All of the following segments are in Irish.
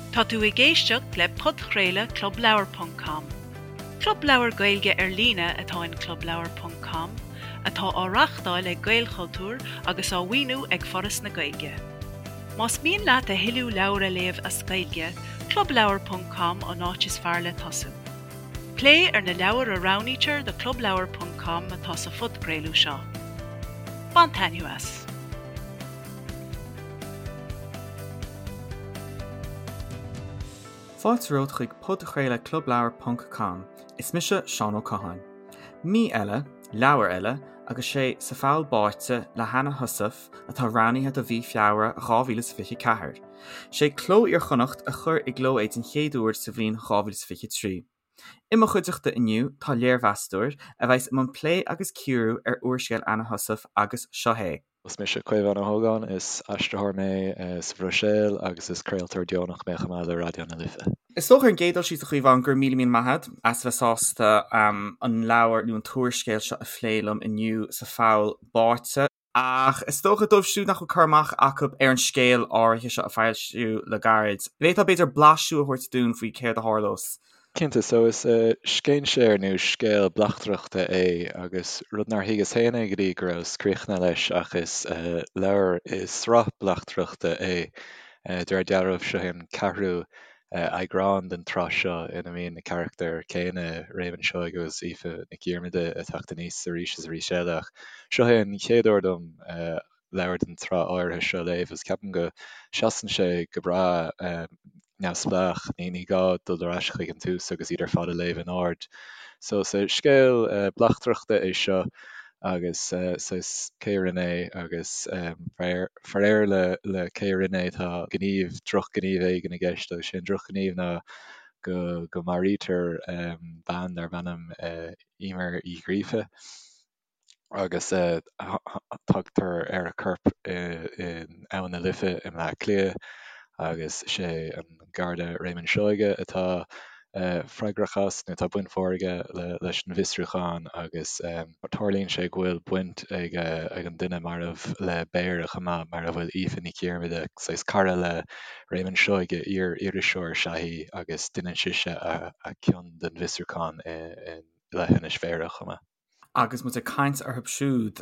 Tá tú ag éisteacht le podchraoladh Club Leabhar ponc com. Club leabhar Gaeilge ar líne atá in Club Leabhar ponc com, atá á reáchtáil ag Gaelchultúr agus á mhaoiniú ag Foras na Gaeilge. Más mian leat a thuilleadh leabhar a léamh as Gaeilge, Club Leabhar ponc com an áit is fearr le tosú. Plé ar na leabhair a roghnaítear do Club Leabhar ponc com atá sa phodchraoladh seo. Bain taitneamh as! Fáilte romhat chuig podchraoladh Club Leabhar ponc com. Is mise Seán Ó Catháin. Mí eile, leabhar eile, agus sé Sa Pholl Báite le hAnna Heussaff atá roghnaithe do mhí Feabhra 2024. Sé Cló Iar-Chonnacht a chuir i gcló é den chéad uair sa bhliain 2023. I mo chuideachta inniu tá léirmheastóir, a bheas i mbun plé agus cíoradh ar úrscéal Anna Heussaff agus seo é. Is mise Caomhán Ó hÓgáin, is aistritheoir mé sa Bhruiséil agus is craoltóir deonach mé chomh maith le Raidió na Life. Is dócha ar an gcéad dul síos a Chaomháin go raibh míle míle maith agat as a bheith sásta an leabhar nó an t-úrscéal seo a phlé liom inniu Sa Pholl Báite. Ach is dócha dóibh siúd nach bhfuil cur amach acu ar an scéal áirithe seo a foilsíodh le gairid, bhféadfá b'fhéidir blaiseadh a thabhairt dúinn faoi céard a tharlós? Cinnte, so is scéinséir nó scéal bleachtaireachta é agus rud nár thuigeas féin é go dtí go rabhas críochnaithe leis ach is leabhar i sraith bleachtaireachta é. De réir dealraimh, seo é an ceathrú eagrán den tsraith seo ina mbíonn na carachtair céanna, Réamonn Seoighe agus Aoife Nic Dhiarmada, ag teacht aníos arís is arís eile ach seo é an chéad uair dom leabhar den tsraith áirithe seo a léamh agus ceapaim go seasann sé go breá neamhspleách, ní gá dul ar ais chuig an tús agus iad ar fad a léamh in ord. So is scéal bleachtaireachta é seo agus saghas cé a rinne é agus faraor le le cé a rinne é tá gníomh, drochghníomh éigin i gceist agus sé an drochghníomh ná go go maraítear bean darb ainm Eimear Uí Ghríofa. agus tagtar ar a corp in Abhainn na Life i mBleá Cliath agus sé an Garda Réamonn Seoighe atá freagrach as, nó tá baint mhór aige leis an bhfiosrúchán agus tarlaíonn sé go bhfuil baint ag an duine marbh le Béara chomh maith, mar a bhfuil Aoife Nic Dhiarmada, saghas cara le Réamonn Seoighe, iar-iriseoir is ea í agus deineann sise a cion den bhfiosrúchán i leithinis Bhéarra chomh maith. Agus muid ag caint orthu siúd,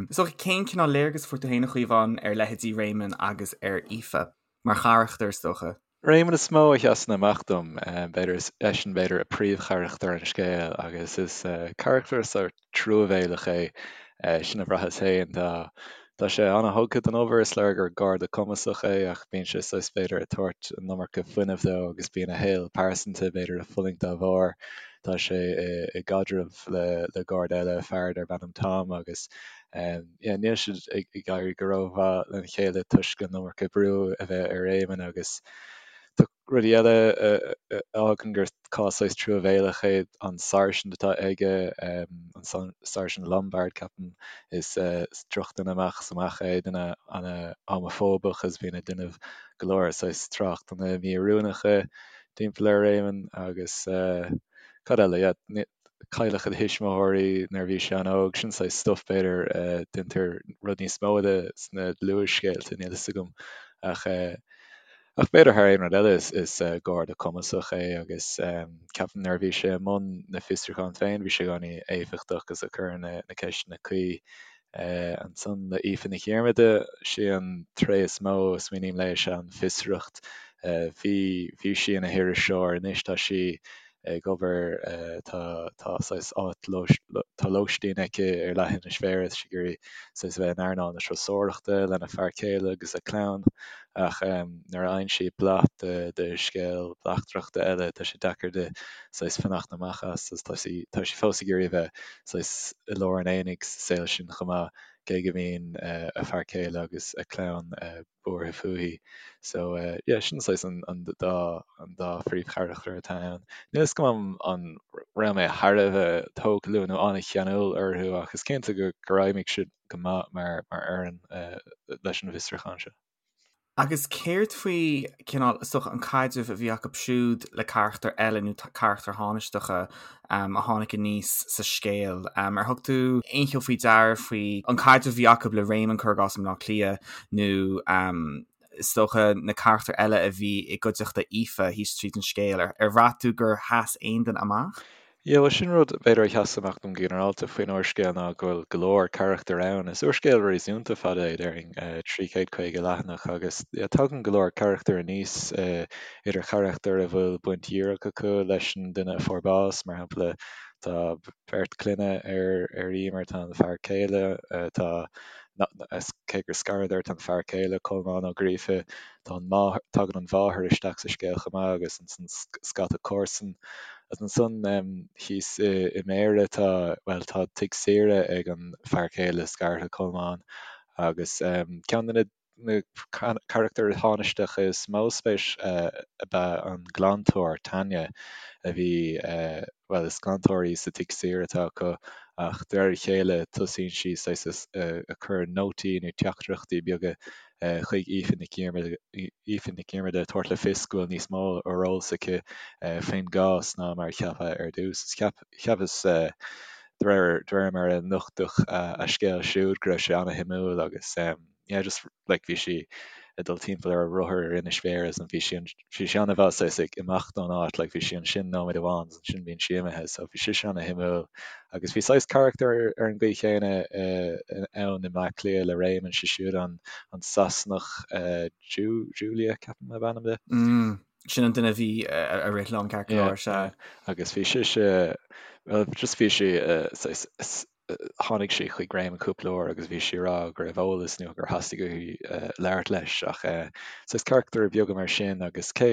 is dócha, cén cineál léargas a fuair tú féin, a Chaomháin, ar leithéidí Réamonn agus ar Aoife, mar charachtair, is dócha? Réamonn is mó a sheasann amach dom. B'fhéidir, is eisean, b'fhéidir, a príomhcharachtar an scéil agus is carachtar sórt truamhéalach é, sin a bhraitheas féin. Tá Tá sé an-thugtha don obair, is léir gur garda cumasach é ach bíonn sé saghas, b'fhéidir, ag tabhairt an iomarca fuinnimh dó agus bíonn a shaol pearsanta, b'fhéidir, ag fulaingt dá bharr. Tá sé i gcaidreamh le garda eile, fear darb ainm Tom agus yeah níl siad ag éirí go rómhaith lena chéile toisc an iomarca brú a bheith ar Éamonn agus tá rudaí eile a fhágann gur cás saghas truamhéalach é an sáirsint atá aige, an Sáirsint Lombard ceapaim, is drochdhuine amach is amach é, duine ana-homafóbach agus bíonn ag déanamh go leor saghas tráchtanna mí-oiriúnacha timpeall ar Réamonn agus cad eile, yeah, cailleadh a thuismitheoirí nuair a bhí sé an-óg, sin saghas stuff b'fhéidir, déantar rud níos mó de sna dlúthscéalta, níl fhios agam ach ach b'fhéidir thar aon rud eile is is garda cumasach é agus ceapaim nuair a bhí sé i mbun na fiosrúchán féin bhí sé i gcónaí éifeachtach agus ag cur na na ceisteanna cuí. Ansan le Aoife Nic Dhiarmada, sí an tréith is mó a smaoiním léi is ea an fiosracht. Bhí bhí sí ina hiriseoir, anois tá sí ag obair, tá tá saghas áit tá lóistín aici ar leithinis Bhéarra, tá sí ag iarraidh saghas a bheith in earnáil na turasóireachta lena fear céile agus a clann ach nuair a fhaigheann sí blas de de scéal bleachtaireachta eile tá sé deacair di saghas fanacht amach as agus tá sí tá sí fós ag iarraidh a bheith saghas i lár an aonaigh sa saol sin chomh maith, cé go mbíonn a fear céile agus a clann buartha fúithi. So yeah, sin saghas an an dá an dá phríomhcharachtar atá ann. Níl fhios agam an raibh mé thar a bheith tógtha leo nó an-cheanúil orthu ach is cinnte go gur fheidhmigh siad go maith mar mar fhoireann leis an bhfiosrúchán seo. Agus céard faoi, cineál, is dócha, an caidreamh a bhí acu siúd le carachtair eile nó carachtair thánaisteacha a tháinig aníos sa scéal? Ar thug tú aon cheo faoi deara faoi an caidreamh a bhí acu le Réamonn, cuir i gcás, i mBleá Cliath nó. is dócha, na carachtair eile a bhí i gcuideachta Aoife thíos tríd an scéal. Ar bhraith tú gur sheas aon duine amach? Yeah, bhuel sin rud b'fhéidir a sheas amach dom go ginearálta faoin úrscéal ná go bhfuil go leor carachtar ann. Is úrscéal réasúnta fada é, déarfainn, 350 leathanach agus yeah, tagann go leor carachtar aníos, idir charachtair a bhfuil baint dhíreach acu leis an duine a fuair bás, mar shampla tá beirt clainne ar ar Emer, tá an fear céile, tá cé gur scaradar, tá an fear céile, Colmán Ó Gríofa, Tá an máthair, tagann an mháthair isteach sa scéal chomh maith agus ansan scata comharsan. Agus ansan thíos i mBéarra tá, bhuel, tá tigh saoire ag an fear céile scartha, Colmán, agus ceann de na na carachtair thánaisteacha is mó spéis ab ea an glantóir, Tanya, a bhí, bhuel, is glantóir í sa tigh saoire atá acu ach de réir a chéile tosaíonn sí saghas ag cur nótaí nó teachtaireachtaí beaga chuig Aoife Nic Dhiarmada ag tabhairt le fios go bhfuil níos mó ar eolas aici faoin gcás ná mar a ceapadh ar dtús. Cheapas, de réir mar a nochtadh a scéal siúd, go raibh sé an-shuimiúil agus yeah just like bhí sí ag dul timpeall ar a rothar ar Inis Bhéarra is bhí sí bhí sí an-mhaith saghas ag imeacht ón áit like bhí sí ansin nóiméad amháin is ansin bíonn sí imithe so bhí sise an-shuimiúil agus bhí saghas carachtar ar an gcaoi chéanna ann i mBleá Cliath le Réamonn, sé siúd an an Sasanach Julia ceapaim ab ainm di. Mm, sin an duine a bhí ag rith liom ceart go leor, sea. Agus bhí sise, well just bhí sí saghas tháinig sí chuig Réamonn cúpla uair agus bhí sí ag rá go raibh eolas nó gur theastaigh uaithi labhairt leis ach saghas carachtair beaga mar sin agus cé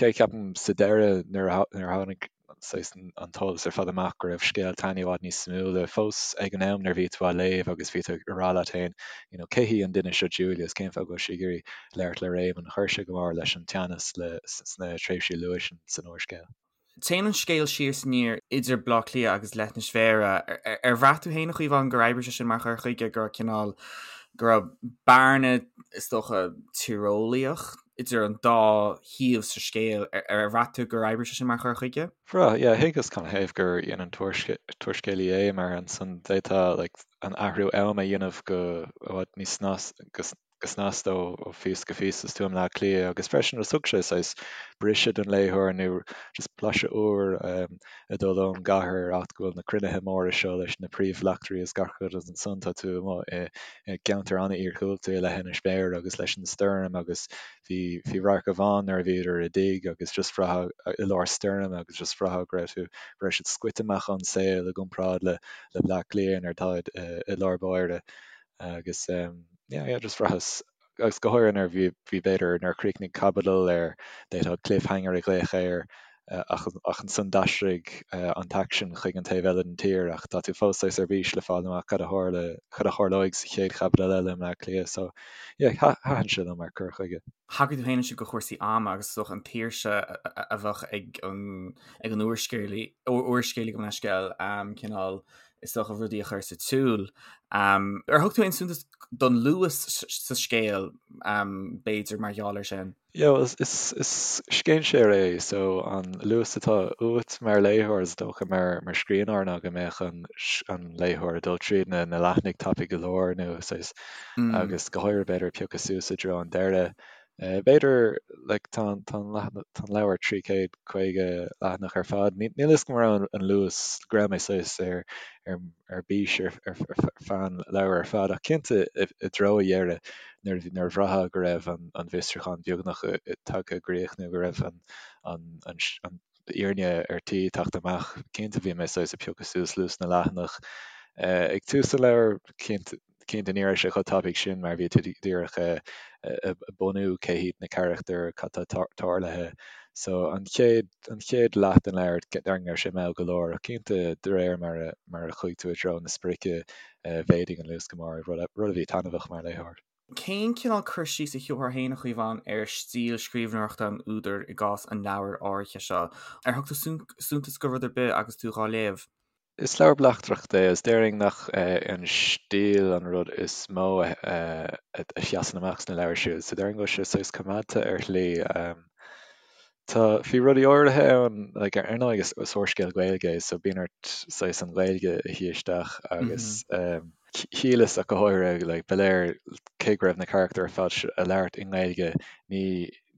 cé ceapaim sa deireadh nuair a tháinig saghas an t-eolas ar fad amach go raibh scéal Tanya i bhfad níos suimiúla fós ag an am nuair a bhí tú á léamh agus bhí tú ag rá leat féin you know cé hí an duine seo Julia is cén fáth go bhfuil sí ag iarraidh labhairt le Réamonn chuir sé go mór leis an teannas le sna tréimhsí luath sin san úrscéal. Téann an scéal siar is aniar idir Baile Átha Cliath agus Leithinis Bhéarra. Ar bhraith tú féin, a Chaomháin, gur oibrigh sé sin mar chur chuige, go raibh cineál, go raibh bearna, is dócha, tíreolaíoch idir an dá shuíomh sa scéal? Ar bhraith tú gur oibrigh sé sin mar chur chuige? Bhraith, yeah. Thuigeas canathaobh gur dhein an t-úrscéalaí é mar ansan d'fhéadfá like an athrú ama a dhéanamh go i bhfad níos go go snasta ó phíosa go píosa is tú i mBleá Cliath agus freisin just thug sé saghas briseadh don léitheoir nó just blaiseadh úr ag dul ón gcathair áit go bhfuil na cruinnithe móra seo leis na príomhbhleachtairí is gach rud agus ansan tá tú amuigh i gceantar an-iargúlta i Leithinis Bhéarra agus leis an stoirm agus bhí bhí radharc amháin nuair a bhíodar i dtigh agus just bhraithfeá i lár stoirme agus just bhraithfeá go raibh tú go raibh siad scoite amach ón saol i gcomparáid le le Bleá Cliath nuair atáid i lár báire agus yeah yeah just bhraitheas agus go háirithe nuair bhí bhí b'fhéidir nuair a chríochnaigh caibidil ar d'fhéadfá cliffhanger a ghlaoch air ach ach ansan d'aistrigh an t-aicsean chuig an taobh eile den tír ach tá tú fós saghas ar bís le fáil amach cad a tharla cad a tharlóidh sa chéad chaibidil eile i mBleá Cliath so yeah thaitin sé liom mar cur chuige. Thagair tú féin ansin do chúrsaí ama agus is dócha an tsaoirse a bheadh ag an ag an úrscéalaí úrscéalaí gabh mo leithscéal cineál is dócha, rudaí a chur sa tsiúl. Ar thug tú aon suntas don luas sa scéal, b'fhéidir, mar gheall air sin? Yeah, well, is, is scéinséir é, so an luas atá uait mar léitheoir, is dócha mar, mar scríbhneoir ná go mbeadh an, an léitheoir ag dul tríd na, na leathanaigh tapaidh go leor nó saghas, agus go háirithe b'fhéidir ag piocadh suas i dtreo an deireadh. B'fhéidir, like, tá an, tá an, tá an leabhar 350 leathanach ar fad. Níl a fhios agam an raibh an luas, go raibh mé saghas ar, ar, ar bís ar, ar, ar feadh an leabhair ar fad, ach cinnte i, i dtreo a dheireadh nuair a bhí, nuair a bhraithfeá go raibh an, an bhfiosrúchán beagnach tagtha i gcrích nó go raibh an, an, an, an fhírinne ar tí teacht amach, cinnte bhí mé saghas ag piocadh suas luas na leathanach. Ag tús an leabhair, cinnte, Cinnte ní raibh sé chomh tapaidh sin mar bhí tú díreach ag bunú cé hiad na carachtair, cad tá tarlaithe. So an chéad, an chéad leath den leabhar déarfainn go raibh sé mall go leor ach cinnte de réir mar a, mar a chuaigh tú i dtreo na sprice mhéadaigh an luas go mór, rud a bhí taitneamhach mar léitheoir. Cén cineál cur síos a thiúrfá féin, a Chaomháin, ar stíl scríbhneoireachta an údair i gcás an leabhair áirithe seo? Ar thug tú suntas do rud ar bith agus tú dhá léamh? Is leabhar bleachtaireachta é agus déarfainn nach é an stíl an rud is mó a sheasann amach sna leabhair siúd, so déarfainn go bhfuil sé saghas coimeádta ar shlí. Tá, bhí rudaí áirithe ann, like ar ndóigh is úrscéal Gaeilge é so bíonn ort saghas an Ghaeilge a shuí isteach agus. Shíleas ach go háirithe, like, ba léir cé go raibh na carachtair ar fad ag labhairt i nGaeilge, ní,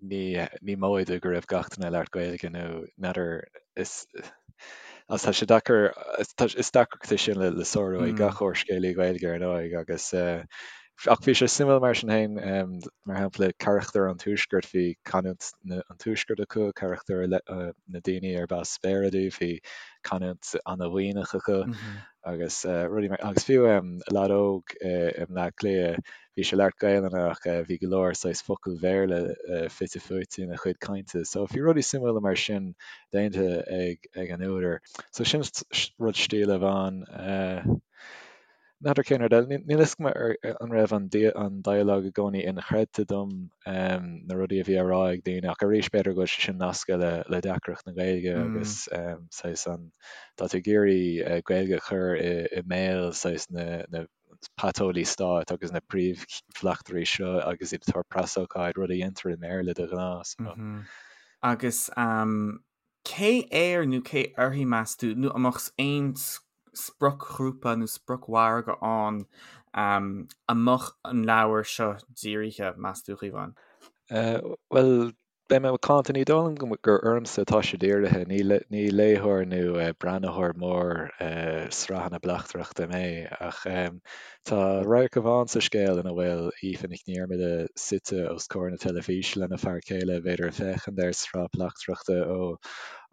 ní, ní móide go raibh gach duine ag labhairt Gaeilge nó n'fheadar, is, agus tá sé deacair, is deacracht é sin le, le sárú ag gach úrscéalaí Gaeilge ar ndóigh agus eh, ach bhí sé suimiúil mar sin féin, mar shampla carachtair an tuaiscirt, bhí canúint na, an tuaiscirt acu, carachtair na daoine arb as Béarra dóibh, bhí canúint ana-Mhuimhneach acu. Agus rudaí mar, agus fiú leaid óg i mBleá Cliath, bhí sé ag labhairt Gaelainne ach bhí go leor saghas focail Bhéarla fite fuaite ina chuid cainte. So bhí rudaí suimiúla mar sin déanta ag ag an údar. So sin rud stíle amháin. N'fheadar cén rud eile. Níl fhios agam an raibh an an dialogue i gcónaí inchreidte dom, na rudaí a bhí á rá ag daoine, ach arís b'fhéidir go bhfuil sé sin nasctha le le deacracht na Gaeilge agus saghas an tá tú ag iarraidh Gaeilge a chur i i mbéal saghas na na paiteolaí stáit agus na príomhbhleachtairí seo agus iad ag tabhairt preasócáid, rud a dhéantar i mBéarla de ghnáth. So. Agus Cé air nó cé uirthi, meas tú, nó an mbeadh aon spriocghrúpa nó spriocmhargadh ann a mbeadh an leabhar seo dírithe, meas tú, a Chaomháin? Bhuel, beidh mé macánta, ní dóigh liom gur ormsa atá sé dírithe, ní léitheoir nó breathnaitheoir mór sraitheanna bleachtaireachta mé, ach Tá radharc amháin sa scéal ina bhfuil Aoife Nic Dhiarmada suite os comhair na teilifíse lena fear céile, b'fhéidir ag féachaint ar sraith bleachtaireachta ó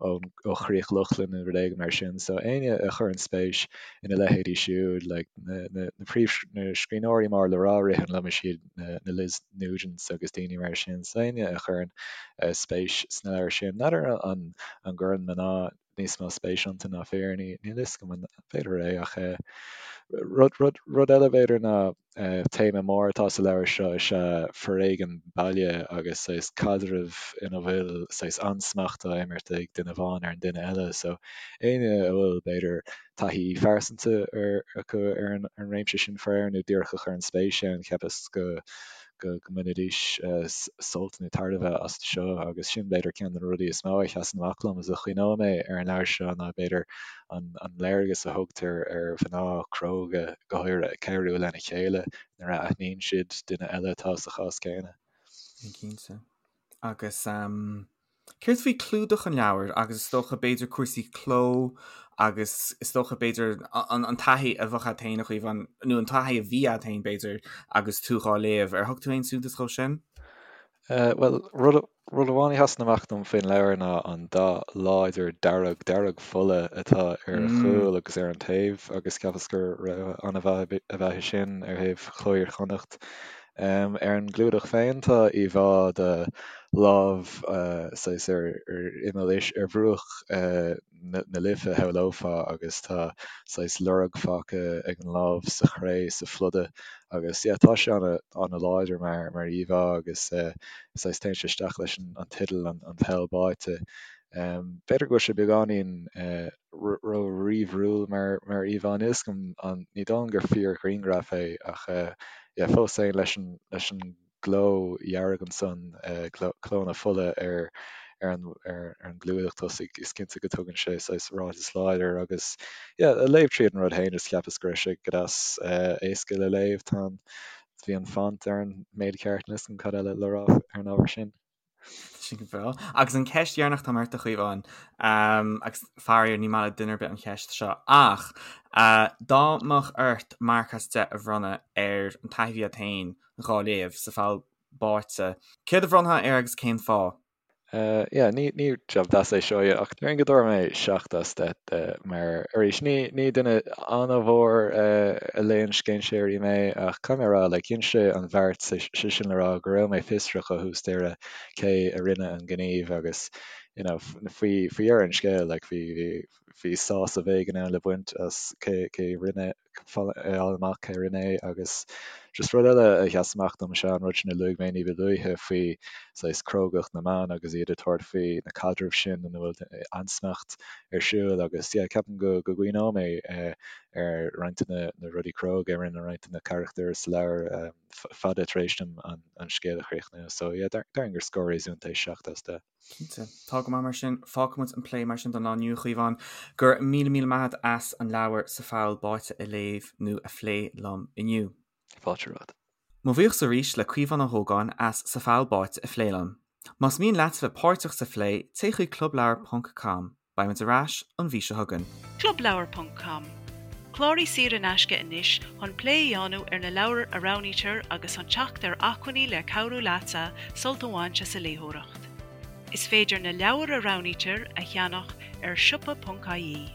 ó Chríoch Lochlann nó rud éigin mar sin. So éinne a chuireann spéis ina leithéidí siúd, like na na na príomh na scríbhneoirí mór le rá ritheann liom is iad na na Liz Nugents agus daoine mar sin. So éinne a chuireann spéis sna leabhair sin, n'fheadar an an gcuireann mná níos mó spéis iontu ná fir, níl a fhios agam an b'fhéidir é ach rud, rud, rud eile b'fhéidir ná téama mór atá sa leabhar seo is ea foréigean baile agus saghas caidreamh ina bhfuil saghas ansmacht á imirt ag duine amháin ar an duine eile so éinne a bhfuil b'fhéidir taithí phearsanta ar acu ar an ar an réimse sin faraor nó díreach a chuireann spéis ann cheapas go go mbainfidís sult nó tairbhe as seo agus sin b'fhéidir ceann de na rudaí is mó a sheasann amach liom agus a chuimhneoidh mé ar an leabhar seo ná b'fhéidir an léargas a thugtar ar mhná cróga go háirithe ag cabhrú lena chéile nuair a aithníonn siad duine eile atá sa chás céanna. Cinnte. Agus Céard faoi clúdach an leabhair agus is dócha b'fhéidir cúrsaí cló agus is dócha b'fhéidir an taithí a bheadh agat féin a Chaomháin, nó an taithí a bhí agat féin b'fhéidir agus tú dhá léamh, ar thug tú aon suntas dhó sin? Bhuel, rud rud amháin a sheasann amach dom faoin leabhar ná an dath láidir dearg, dearg fola atá ar a chúl agus ar an taobh agus cheapas gur rogha an-mhaith ab ea é sin ar thaobh Chló Iar-Chonnacht. Ar an gclúdach féin tá íomhá de lámh saghas ar imeall ar bhruach na Life shamhlófá agus tá saghas lorg fágtha ag an lámh sa chré sa phluda agus yeah tá sé ana-láidir mar mar íomhá agus saghas téann sé isteach leis an teideal an Poll Báite. B'fhéidir go bhfuil sé beagáinín ró-ríomhairiúil mar mar íomhá níl 'fhios agam an ní dóigh liom gur fíor-ghrianghraf é ach yeah fós féin leis an leis an gcló dhearg ansan cló na fola ar ar an ar an gclúdach tosaigh is cinnte go dtugann sé saghas ráiteas láidir agus yeah ag léamh tríd an rud féin just cheapas go raibh sé go deas éasca le léamh tá an bhí an font ar an méid ceart níl 'fhios agam cad eile le rá ar an ábhar sin. Sin go breá. Agus an ceist dheireanach atá ort a Chaomháin, agus faraor ní maith le duine ar bith an cheist seo, ach dá mbeadh ort marc as 10 a bhronnadh ar an taithí a bhí agat féin dhá léamh sa Pholl Báite, céard a bhronnfá air agus cén fáth? Yeah, ní ní jab deas é seo ach déarfainn go dtabharfaidh mé 7 as 10 de mar arís ní ní duine an-mhór a léann scéinséirí mé ach caithfidh mé a rá like dhein sé an bheart sé sin le rá go raibh mé fiosrach ó thús deireadh cé a rinne an gníomh agus you know faoi faoi dheireadh an scéil like bhí bhí bhí sásamh éigin ann le baint as cé cé rinne a fháil amach cé rinne é agus just rud eile a sheas amach dom is ea an rud sin a luaigh mé ní ba luaithe faoi saghas crógacht na mban agus iad ag tabhairt faoi na caidrimh sin ina bhfuil ansmacht ar siúl agus yeah ceapaim go go gcuimhneoidh mé ar roinnt de na rudaí cróga a rinne roinnt de na carachtair sa leabhar fada tar éis dom an scéal a chríochnú. So yeah, déarfainn gur scór réasúnta é 7 as 10. Cinnte. Tá. Tá go maith mar sin. Fágfaidh muid an plé mar sin don lá inniu, a Chaomháin. Go raibh míle míle maith agat as an leabhar Sa Pholl Báite a léamh nó a phlé liom inniu. Fáilte romhat. Mo bhuíochas arís le Caomhán Ó hÓgáin as Sa Pholl Báite a phlé liom. Más mian leat bheith páirteach sa phlé, téigh chuig clubleabhar ponc com. Beidh muid ar ais an mhí seo chugainn. Clubleabhar ponc com, Cláraigh saor in aisce anois chun plé a dhéanamh ar na leabhair a roghnaítear agus chun teacht ar acmhainní le cabhrú leatsa sult a bhaint as an léitheoireacht. Is féidir na leabhair a roghnaítear a cheannach ar siopa.ie.